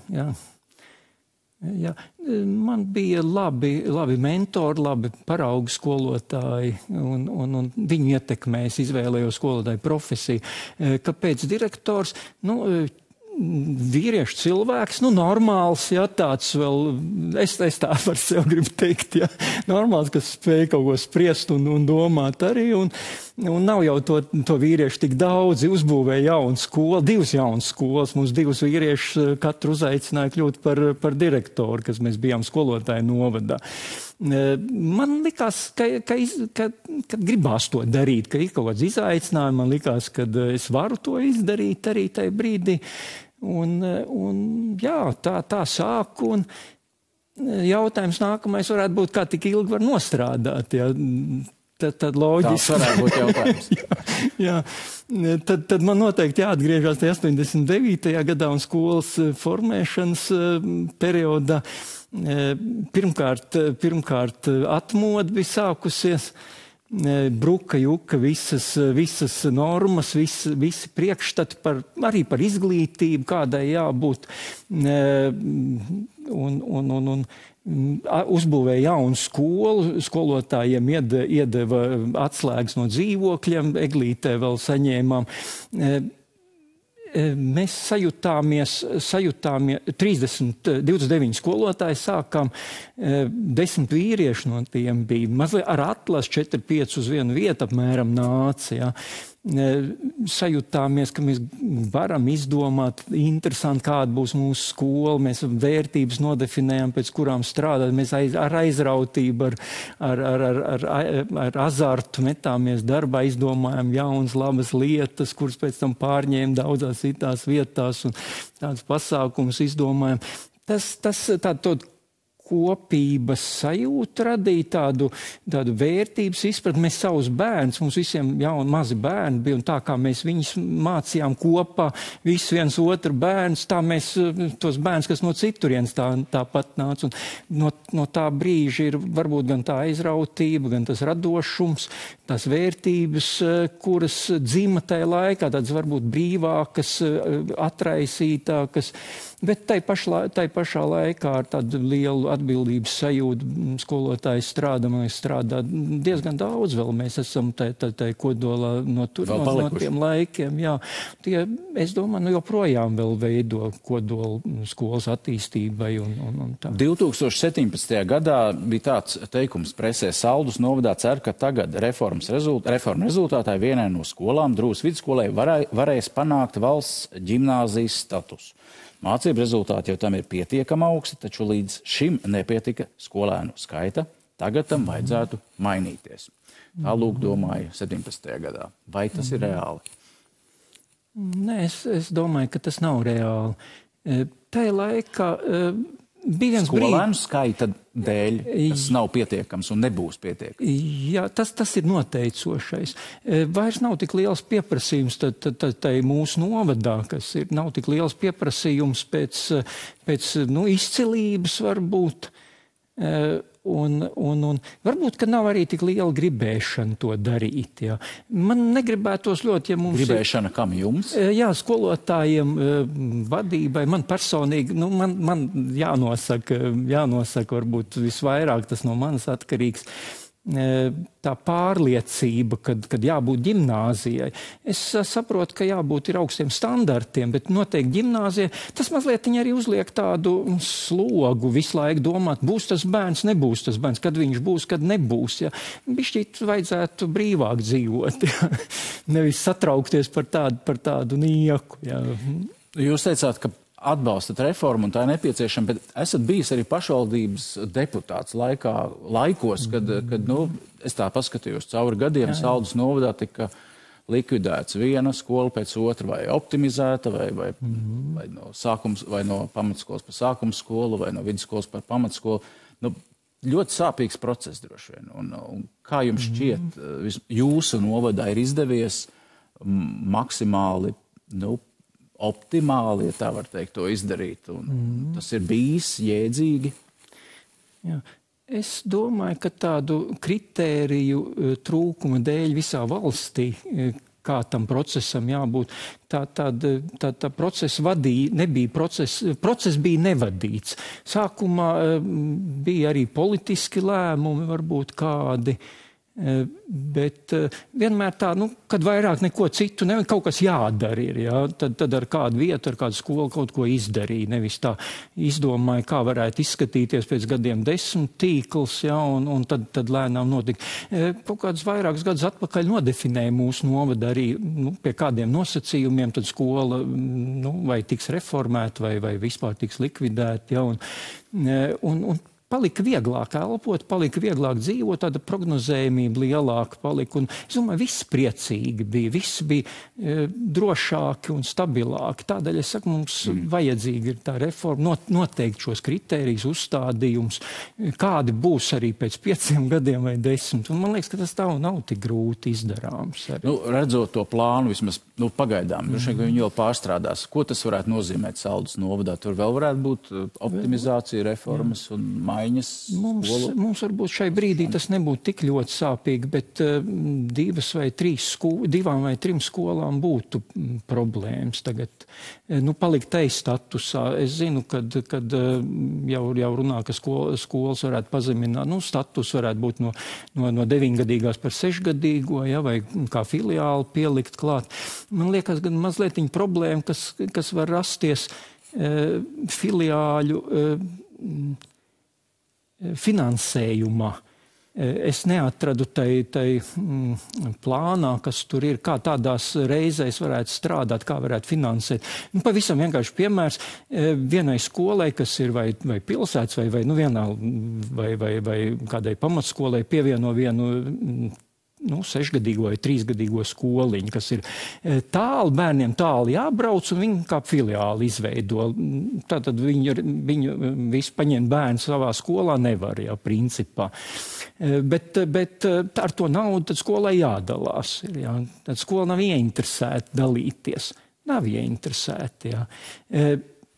Man bija labi mentori, labi paraugu skolotāji, un viņu ietekmēs izvēlējos skolotāju profesiju. Kāpēc direktors? Vīriešu cilvēks, normāls, ja, tāds vēl, es tā par sevi gribu teikt, ja, normāls, kas spēj kaut ko spriest un domāt arī, un nav jau to vīriešu tik daudzi, uzbūvēja jaunu skolu, 2 jaunas skolas, mums 2 vīriešus katru uzaicināja kļūt par direktoru, kas mēs bijām skolotāju novadā. Man likās, ka gribās to darīt, ka ir kaut kāds izaicinājums, man likās, ka es varu to izdarīt arī tajā brīdī. Tā sāku, un jautājums nākamais varētu būt, kā tik ilgi var nostrādāt, ja. Tad loģiski. Tā varētu būt jautājums. Jā. Tad man noteikti jāatgriežas 89. gadā un skolas formēšanas periodā. Pirmkārt atmoda bija sākusies, bruka juka visas normas, visi priekšstati arī par izglītību, kādai jābūt, un uzbūvēja jaunu skolu, skolotājiem iedeva atslēgas no dzīvokļiem, Eglītē vēl saņēmām. Mēs sajūtāmies 29 skolotāji sākām, 10 vīrieši no tiem bija, mazliet ar atlas 4-5 uz vienu vietu apmēram nāca, ja. Sajūtāmies, ka mēs varam izdomāt interesanti, kāda būs mūsu skola, mēs vērtības nodefinējam, pēc kurām strādāt, mēs ar aizrautību, ar azartu metāmies darbā, izdomājam jaunas, labas lietas, kuras pēc tam pārņēma daudzās citās vietās un tādas pasākumus izdomājam. Tādu kopības sajūta radīja tādu vērtības izpratni. Mēs savus bērnus, mums visiem jauni mazi bērni bija, un tā kā mēs viņus mācījām kopā, viss viens otru bērns, tā mēs tos bērns, kas no citurienes tāpat nāca. Un no tā brīža ir varbūt gan tā aizrautība, gan tas radošums, tās vērtības, kuras dzima tajā laikā, tādas varbūt brīvākas, atraisītākas, bet tai pašā laikā ar tādu lielu atbildības sajūtu skolotājs strādā diezgan daudz vēl. Mēs esam tai kodolā no tiem laikiem. Jā. Tie, es domāju, joprojām vēl veido kodolu skolas attīstībai. Un tā. 2017. gadā bija tāds teikums presē: Saldus novadā cer, ka tagad reforma rezultātā vienai no skolām, Drūvas vidusskolai, varēs panākt valsts ģimnāzijas statusu. Mācību rezultāti jau tam ir pietiekami augsti, taču līdz šim nepietika skolēnu skaita. Tagad tam vajadzētu mainīties. Tā lūk domāju 17. gadā. Vai tas ir reāli? Nē, es domāju, ka tas nav reāli. Tajā laikā bija viens brīdis. Skolēnu skaita dēļ tas nav pietiekams un nebūs pietiekams. Jā, tas ir noteicošais. Vairs nav tik liels pieprasījums tai mūsu novadā, kas ir, nav tik liels pieprasījums pēc izcilības varbūt. Un varbūt, ka nav arī tik liela gribēšana to darīt. Jā. Man negribētos ļoti, ja mums gribēšana kam jums? Jā, skolotājiem, vadībai, man personīgi, man jānosaka varbūt visvairāk, tas no manas atkarīgs, tā pārliecība, kad jābūt ģimnāzijai. Es saprotu, ka jābūt ir augstiem standartiem, bet noteikti ģimnāzijai tas mazliet arī uzliek tādu slogu visu laiku domāt, būs tas bērns, nebūs tas bērns, kad viņš būs, kad nebūs. Ja. Bišķīt vajadzētu brīvāk dzīvot, ja. Nevis satraukties par tādu nieku. Ja. Jūs teicāt, ka atbalstat reformu un tā ir nepieciešama, bet esat bijis arī pašvaldības deputāts laikos, kad es tā paskatījos cauri gadiem, Saldus novadā tika likvidēts viena skola pēc otra, vai optimizēta, vai no sākums, vai no pamatskolas par sākuma skolu, vai no vidusskolas par pamatskolu. Ļoti sāpīgs process droši vien. Un kā jums šķiet, jūsu novadā ir izdevies maksimāli, optimāli, ja tā var teikt, to izdarīt. Un tas ir bijis jēdzīgi. Jā. Es domāju, ka tādu kritēriju trūkuma dēļ visā valstī, kā tam procesam jābūt, tā procesa process bija nevadīts. Sākumā bija arī politiski lēmumi, varbūt kādi, bet vienmēr tā, kad vairāk neko citu, kaut kas jādara ir, jā, tad ar kādu vietu, ar kādu skolu kaut ko izdarīja, nevis tā izdomāja, kā varētu izskatīties pēc gadiem 10 tīkls, jā, un tad lēnām notika. Kaut kādus vairākus gadus atpakaļ nodefinēja mūsu novada arī, pie kādiem nosacījumiem, tad skola, vai tiks reformēta, vai vispār tiks likvidēta, jā, un palika vieglāk elpot, palika vieglāk dzīvot, tāda prognozējumība lielāka palika. Un, es domāju, viss priecīgi bija, viss bija drošāki un stabilāki. Tādēļ es saku, mums vajadzīga ir tā reforma, noteikt šos kritērijus, uzstādījums, kādi būs arī pēc 5 gadiem vai 10. Un man liekas, ka tas tā nav tik grūti izdarāms. Redzot to plānu, vismaz pagaidām, viņi vēl pārstrādās. Ko tas varētu nozīmēt Saldus novadā? Tur vēl varētu būt optimizācija, reformas un Mums varbūt šai brīdī tas nebūtu tik ļoti sāpīgi, bet 2 vai 3 skolām būtu problēmas tagad. Palikt statusā. Es zinu, kad jau runā, ka skolas varētu pazemināt. Status varētu būt no 9-gadīgās par 6-gadīgo, ja, vai kā filiāli pielikt klāt. Man liekas, gan mazliet problēma, kas var rasties filiāļu finansējumā. Es neatradu tai plānā, kas tur ir, kā tādās reizēs varētu strādāt, kā varētu finansēt. Pavisam vienkārši piemērs vienai skolai, kas ir vai pilsētas, vai kādai pamatskolai pievieno vienu 6-gadīgo vai 3-gadīgo skoliņu, kas ir bērniem tāli jābrauc, un viņi kā filiāli izveido. Tātad viņu visu paņemt bērnu savā skolā nevar, jā, principā. Bet ar to naudu tad skolai jādalās. Jā. Tad skola nav ieinteresēta dalīties. Nav ieinteresēta, jā.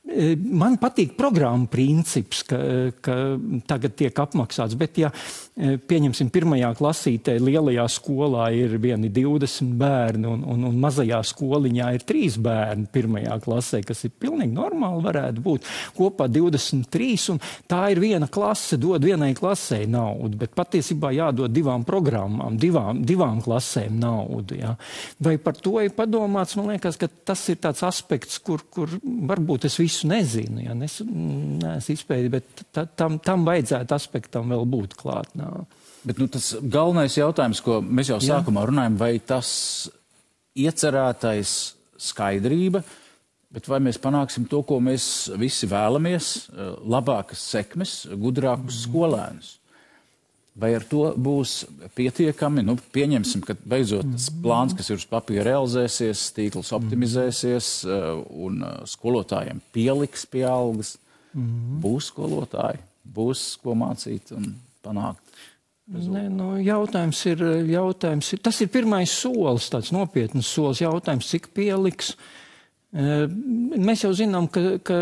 Man patīk programma princips, ka tagad tiek apmaksāts, bet ja pieņemsim 1. klasītē lielajā skolā ir 20 bērni un mazajā skoliņā ir 3 bērni 1. klasē, kas ir pilnīgi normāli varētu būt, kopā 23, un tā ir viena klase, dod vienai klasē naudu, bet patiesībā jādod 2 programmām, 2 klasēm naudu. Ja. Vai par to ir padomāts? Man liekas, ka tas ir tāds aspekts, kur varbūt es visu nezinu, ja neesmu izpēdījis, bet tam vajadzētu aspektam vēl būt klāt. Bet tas galvenais jautājums, ko mēs jau sākumā runājam, vai tas iecerētais skaidrība, bet vai mēs panāksim to, ko mēs visi vēlamies, labākas sekmes, gudrākus skolēnus? Vai ar to būs pietiekami? Pieņemsim, ka beidzot tas plāns, kas ir uz papīra, realizēsies, tīkls optimizēsies un skolotājiem pieliks pie algas. Būs skolotāji, būs ko mācīt un panākt. Jautājums ir, tas ir pirmais solis, tāds nopietnas solis. Jautājums, cik pieliks, Mēs jau zinām, ka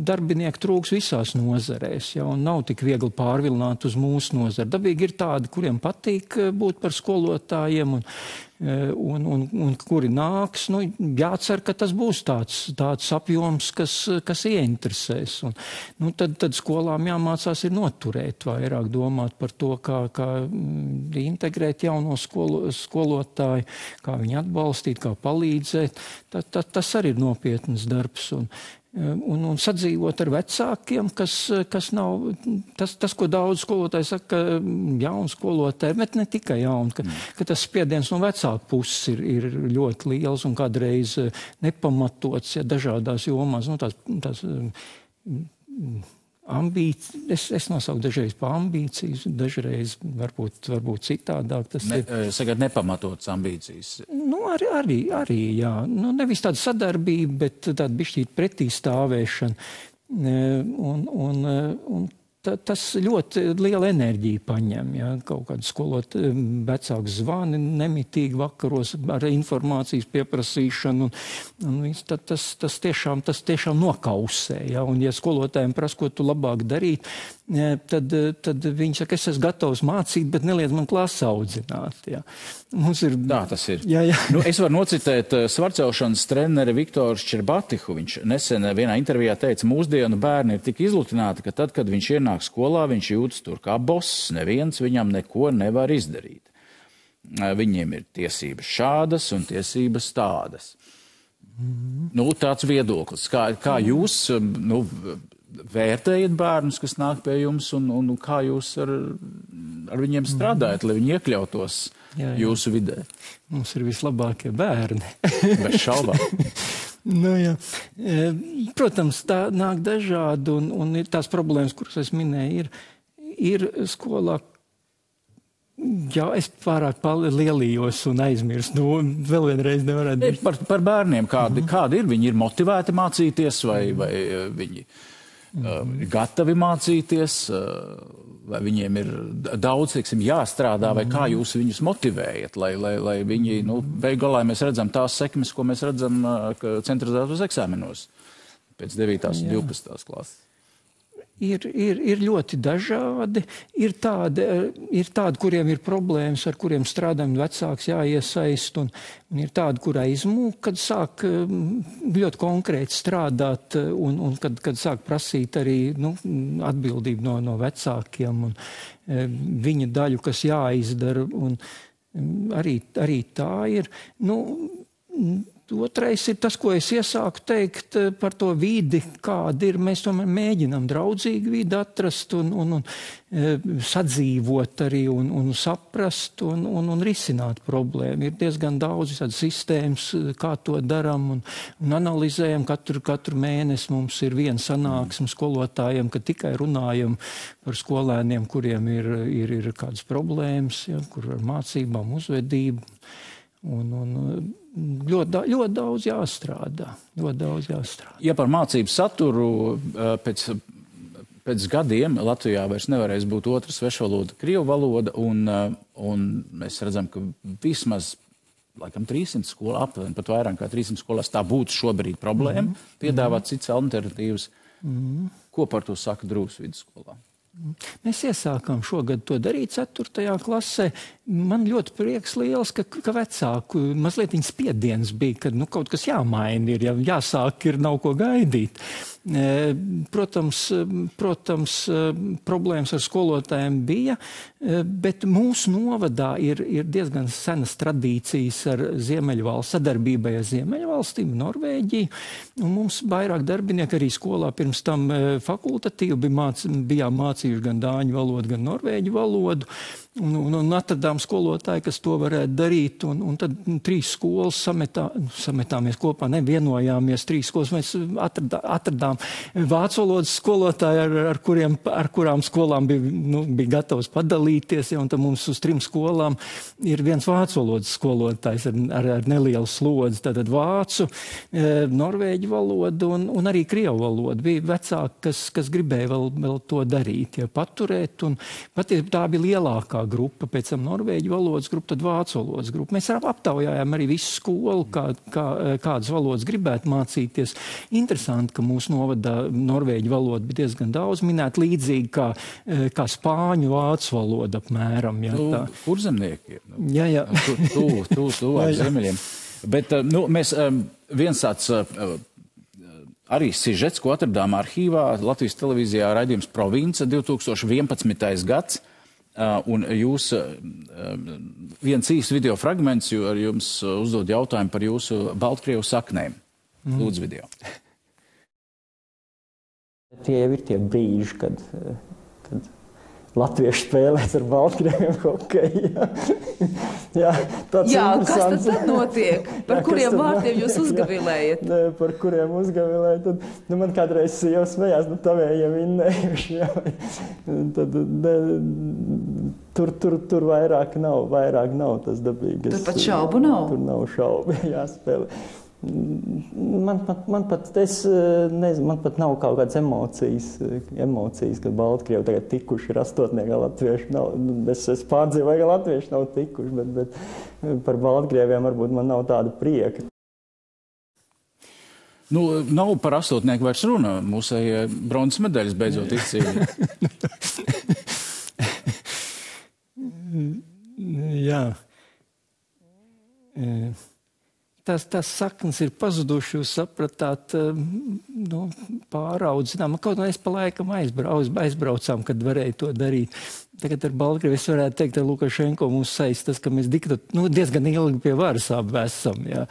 darbinieki trūks visās nozarēs, ja, un nav tik viegli pārvilināt uz mūsu nozari. Dabīgi ir tādi, kuriem patīk būt par skolotājiem un kuri nāks. Nu, jācer, ka tas būs tāds apjoms, kas ieinteresēs. Un, nu, tad skolām jāmācās ir noturēt, vairāk domāt par to, kā integrēt jauno skolotāju, kā viņu atbalstīt, kā palīdzēt. Tas arī ir nopietns darbs. Un sadzīvot ar vecākiem, kas nav tas, ko daudz skolotāji saka, jauni skolotāji, bet ne tikai jauni, ka tas spiediens no vecāku puses ir ļoti liels un kādreiz nepamatots, ja dažādās jomās, nu tās ambīcijas, es nosauku dažreiz pa ambīcijas, dažreiz varbūt citādāk. Sagad nepamatotas ambīcijas. Nu, arī, jā. Nu, nevis tāda sadarbība, bet tāda bišķīt pretī stāvēšana. Un tas ļoti liela enerģija paņem, ja, kaut kādu skolot vecāku zvani nemitīgi vakaros ar informācijas pieprasīšanu, un tas tiešām nokausē, ja, un ja skolotājiem prasa, ko tu labāk darīt, tad viņi saka, es esmu gatavs mācīt, bet neliedz man klasi audzināt, ja. Mums ir... Tā tas ir. Jā. Nu, es varu nocitēt svarcelšanas treneri Viktoru Šķerbatihu. Viņš nesen vienā intervijā teica, mūsdienu bērni ir tik izlutināti, ka tad, kad viņš ienāk skolā, viņš jūtas tur kā boss, neviens viņam neko nevar izdarīt. Viņiem ir tiesības šādas un tiesības tādas. Nu, tāds viedoklis. Kā jūs vērtējat bērnus, kas nāk pie jums, un kā jūs ar viņiem strādājat, lai viņi iekļautos jūsu vidē? Mums ir vislabākie bērni. Bez šaubām. Nu, jā. Protams, tā nāk dažādi, un tās problēmas, kuras es minēju, ir skolā. Jā, es pārāk lielījos un aizmirstu. Nu, vēl vienreiz nevarētu būt. Par bērniem, kādi ir? Viņi ir motivēti mācīties, vai viņi gatavi mācīties, vai viņiem ir daudz, teiksim, jāstrādā, vai kā jūs viņus motivējat, lai viņi, beigu galā mēs redzam tās sekmes, ko mēs redzam centralizētos eksāmenos pēc 9. un 12. klases. Ir ļoti dažādi. Ir tādi, kuriem ir problēmas, ar kuriem strādājam vecāks jāiesaist, un ir tādi, kurā izmūk, kad sāk ļoti konkrēti strādāt, un kad sāk prasīt arī atbildību no vecākiem, un viņa daļu, kas jāizdara, un arī tā ir. Otrais ir tas, ko es iesāku teikt par to vidi, kāda ir. Mēs tomēr mēģinām draudzīgi vidi atrast un sadzīvot arī un saprast un risināt problēmu. Ir diezgan daudz tādas sistēmas, kā to daram un analizējam. Katru mēnesi mums ir viena sanāksme skolotājiem, kad tikai runājam par skolēniem, kuriem ir kādas problēmas, ja, kur ar mācībām, uzvedību. Ļoti daudz jāstrādā. Ja par mācību saturu pēc gadiem Latvijā vairs nevarēs būt otra svešvaloda, krievu valoda, un mēs redzam, ka vismaz laikam 300 skolā, aptuveni pat vairāk kā 300 skolās tā būtu šobrīd problēma, piedāvāt citas alternatīvas. Ko par to saka Drūvas vidusskolā? Mēs iesākām šogad to darīt 4. klasē. Man ļoti prieks liels, ka vecāku mazliet viņa spiediens bija, ka kaut kas jāmaina ir, ja jāsāk ir, nav ko gaidīt. Protams, problēmas ar skolotājiem bija, bet mūsu novadā ir diezgan senas tradīcijas ar Ziemeļvalsts, sadarbībai ar Ziemeļvalstīm, Norvēģiju, un mums vairāk darbinieki arī skolā pirms tam fakultatīvi bijām mācījuši gan dāņu valodu, gan norvēģu valodu, un atradām skolotāju, kas to varētu darīt, un tad 3 skolas sametāmies kopā, nevienojāmies 3 skolas, mēs atradām vācu valodas skolotāju, ar kurām skolām bija gatavs padalīties, ja, un tad mums uz 3 skolām ir viens vācu valodas skolotājs ar nelielu slodzi, tātad vācu, norvēģu valodu un arī krievu valodu. Bija vecāki, kas gribēja vēl to darīt, ja, paturēt, un patiesībā tā bija lielākā grupa, pēc tam norvēģu valodas grupu, tad vācu valodas grupu. Mēs aptaujājām arī visu skolu, kādas valodas gribētu mācīties. Interesanti, ka mūsu novadā norvēģu valoda bija diezgan daudz minēta, līdzīgi kā spāņu vācu valoda apmēram. Jā, kurzemnieki ir. Jā. Tuvāk ziemeļiem. Bet mēs viens tāds arī sižets, ko atradām arhīvā, Latvijas televīzijā raidījums Province 2011. gads, un jūs viens īsts video fragments, jo ar jums uzdod jautājumu par jūsu Baltkrievu saknēm. Lūdzu video. Tie jau ir tie brīži, kad latvieši spēlēs ar baltkrieviem hokeju. Jā, kas tad notiek? Par kuriem vārtiem jūs uzgavilējat? Par kuriem uzgavilējat? Tad, man kādreiz jau smējās, tavējiem vinnējuši. Tad, tur vairāk nav tas dabīgas. Tur pat šaubu nav? Tur nav šaubu, jāspēlē. Man pat nav kaut kādas emocijas, kad Baltkrievi tagad tikuši ir astotniekā latvieši nav. Es pārdzīvoju, ka latvieši nav tikuši, bet par Baltkrieviem varbūt man nav tāda prieka. Nav par astotnieku vairs runa. Mūsējie bronzas medaļas beidzot izcīnīja. Jā. Tās saknes ir pazuduši, jūs sapratāt, pāraudzinām. Kaut kā mēs pa laikam aizbraucām, kad varēja to darīt. Tagad ar Baltkrievi es varētu teikt, ar Lukašenko mums saistas, ka mēs diezgan ilgi pie varas esam. Jā.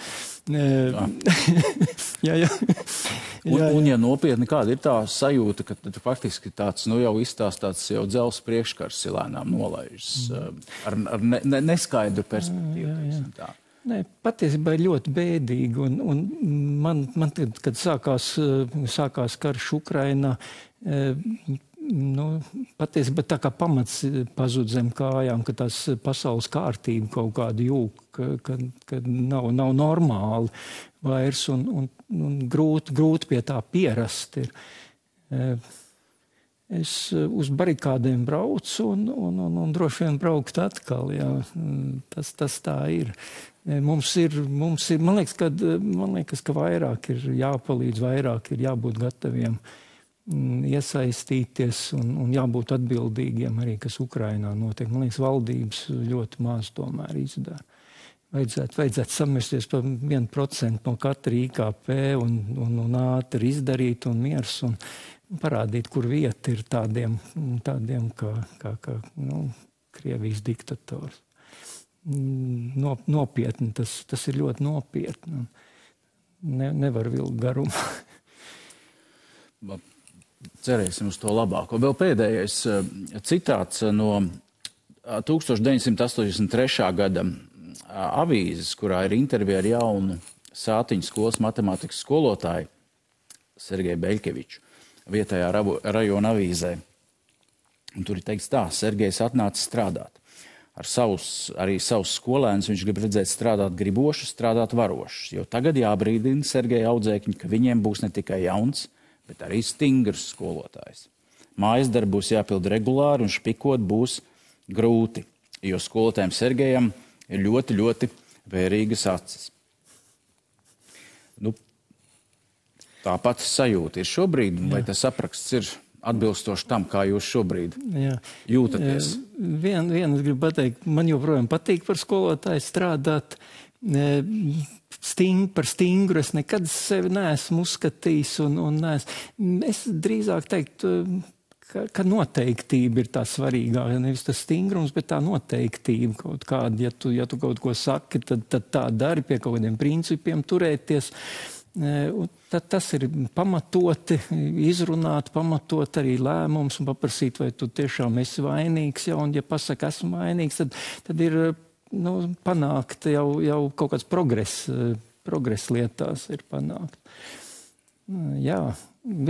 Jā. Un ja nopietni, kāda ir tā sajūta, ka faktiski tāds, jau izstāstāts jau dzels priekškars lēnām nolaižas ar neskaidru perspektīvu. Tā. Nē, patiesībā ir ļoti bēdīgi, un man kad sākās karš Ukrainā, patiesībā tā kā pamats pazud zem kājām, ka tās pasaules kārtība kaut kāda jūg, ka nav normāli vairs, un grūti pie tā pierast ir. Es uz barikādēm braucu un droši vien braukt atkal, jā. Tas tā ir. Mums ir, man liekas, ka vairāk ir jāpalīdz, vairāk ir jābūt gataviem iesaistīties un jābūt atbildīgiem arī, kas Ukrainā notiek. Man liekas, valdības ļoti maz tomēr izdara. Vajadzētu samesties par 1% no katra IKP un ātri izdarīt un miers un parādīt, kur vieta ir tādiem kā Krievijas diktators. Nopietni, tas ir ļoti nopietni. Nevar vilkt garumā. Cerēsim uz to labāko. Vēl pēdējais citāts no 1983. gada avīzes, kurā ir intervija ar jaunu Sātiņu skolas matemātikas skolotāju Sergeju Beļkeviču vietējā rajona avīzē. Un tur ir teikts tā: Sergejs atnāca strādāt. Arī savus skolēnus viņš grib redzēt strādāt gribošus, strādāt varošus, jo tagad jābrīdina Sergeja audzēkņi, ka viņiem būs ne tikai jauns, bet arī stingrs skolotājs. Mājas darbi būs jāpild regulāri un špikot būs grūti, jo skolotājiem Sergejam ir ļoti, ļoti vērīgas acis. Tāpat sajūta ir šobrīd, vai tas apraksts ir atbilstoši tam, kā jūs šobrīd jūtaties? Vienu es gribu pateikt, man joprojām patīk par skolotāju strādāt. Par stingru es nekad sevi neesmu uzskatījis un es drīzāk teiktu, ka noteiktība ir tā svarīgākā. Nevis tas stingrums, bet tā noteiktība kaut kāda. Ja tu kaut ko saki, tad tā dari, pie kaut kādiem principiem turēties. Tad tas ir pamatoti, izrunāt, pamatot arī lēmums un paprasīt, vai tu tiešām esi vainīgs. Ja, un ja pasaka, esmu vainīgs, tad ir panākt jau kaut kāds progress lietās ir panākt. Jā,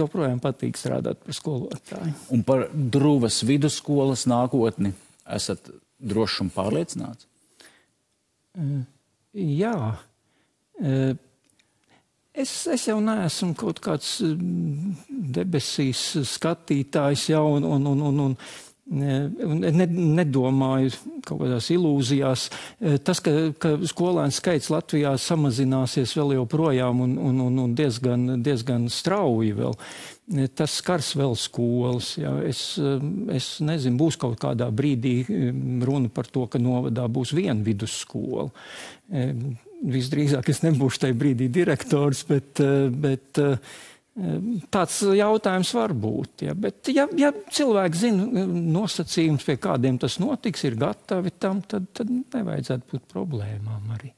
joprojām patīk strādāt par skolotāju. Un par Druvas vidusskolas nākotni esat droši un pārliecināts? Jā. Es jau neesmu kaut kāds debesīs skatītājs jau, un Nedomāju kaut kādās ilūzijās. Tas, ka skolēnu skaits Latvijā samazināsies vēl joprojām un diezgan strauji vēl, tas skars vēl skolas. Jā. Es nezinu, būs kaut kādā brīdī runa par to, ka novadā būs viena vidusskola. Visdrīzāk es nebūšu tajā brīdī direktors, bet tāds jautājums var būt. Ja. Bet ja cilvēki zina nosacījums, pie kādiem tas notiks, ir gatavi tam, tad nevajadzētu būt problēmām arī.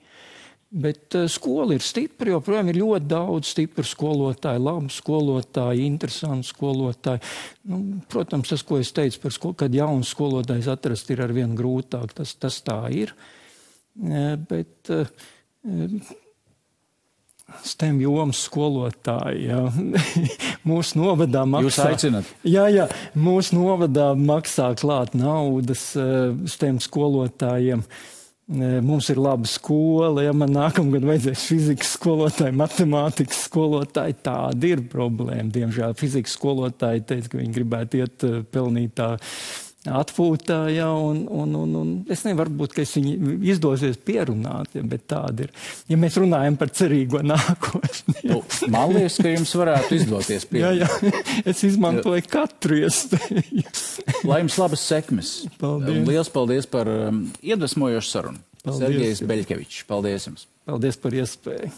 Bet skola ir stipra, joprojām ir ļoti daudz stipru skolotāju, labu skolotāju, interesantu skolotāju. Protams, tas, ko es teicu par skolu, kad jauns skolotājs atrast ir arvien grūtāk, tas tā ir. Bet STEM jomas skolotāji, jā. Mūsu novadā maksā... Jūs aicināt? Jā, mūsu novadā maksā klāt naudas STEM skolotājiem. Mums ir laba skola, ja man nākamgad vajadzēs fizikas skolotāji, matemātikas skolotāji, tāda ir problēma. Diemžēl fizikas skolotāji teica, ka viņi gribētu iet pelnītā atpūtā, ja, un es nevaru būt, ka es viņu izdosies pierunāt, ja, bet tāda ir. Ja mēs runājam par cerīgo nākotni. Man liekas, ka jums varētu izdoties pierunāt. Jā, es izmantoju katru iespēju. Lai jums labas sekmes. Paldies. Liels paldies par iedvesmojošu sarunu. Paldies. Sergejs Beļkevičs. Paldies jums. Paldies par iespēju.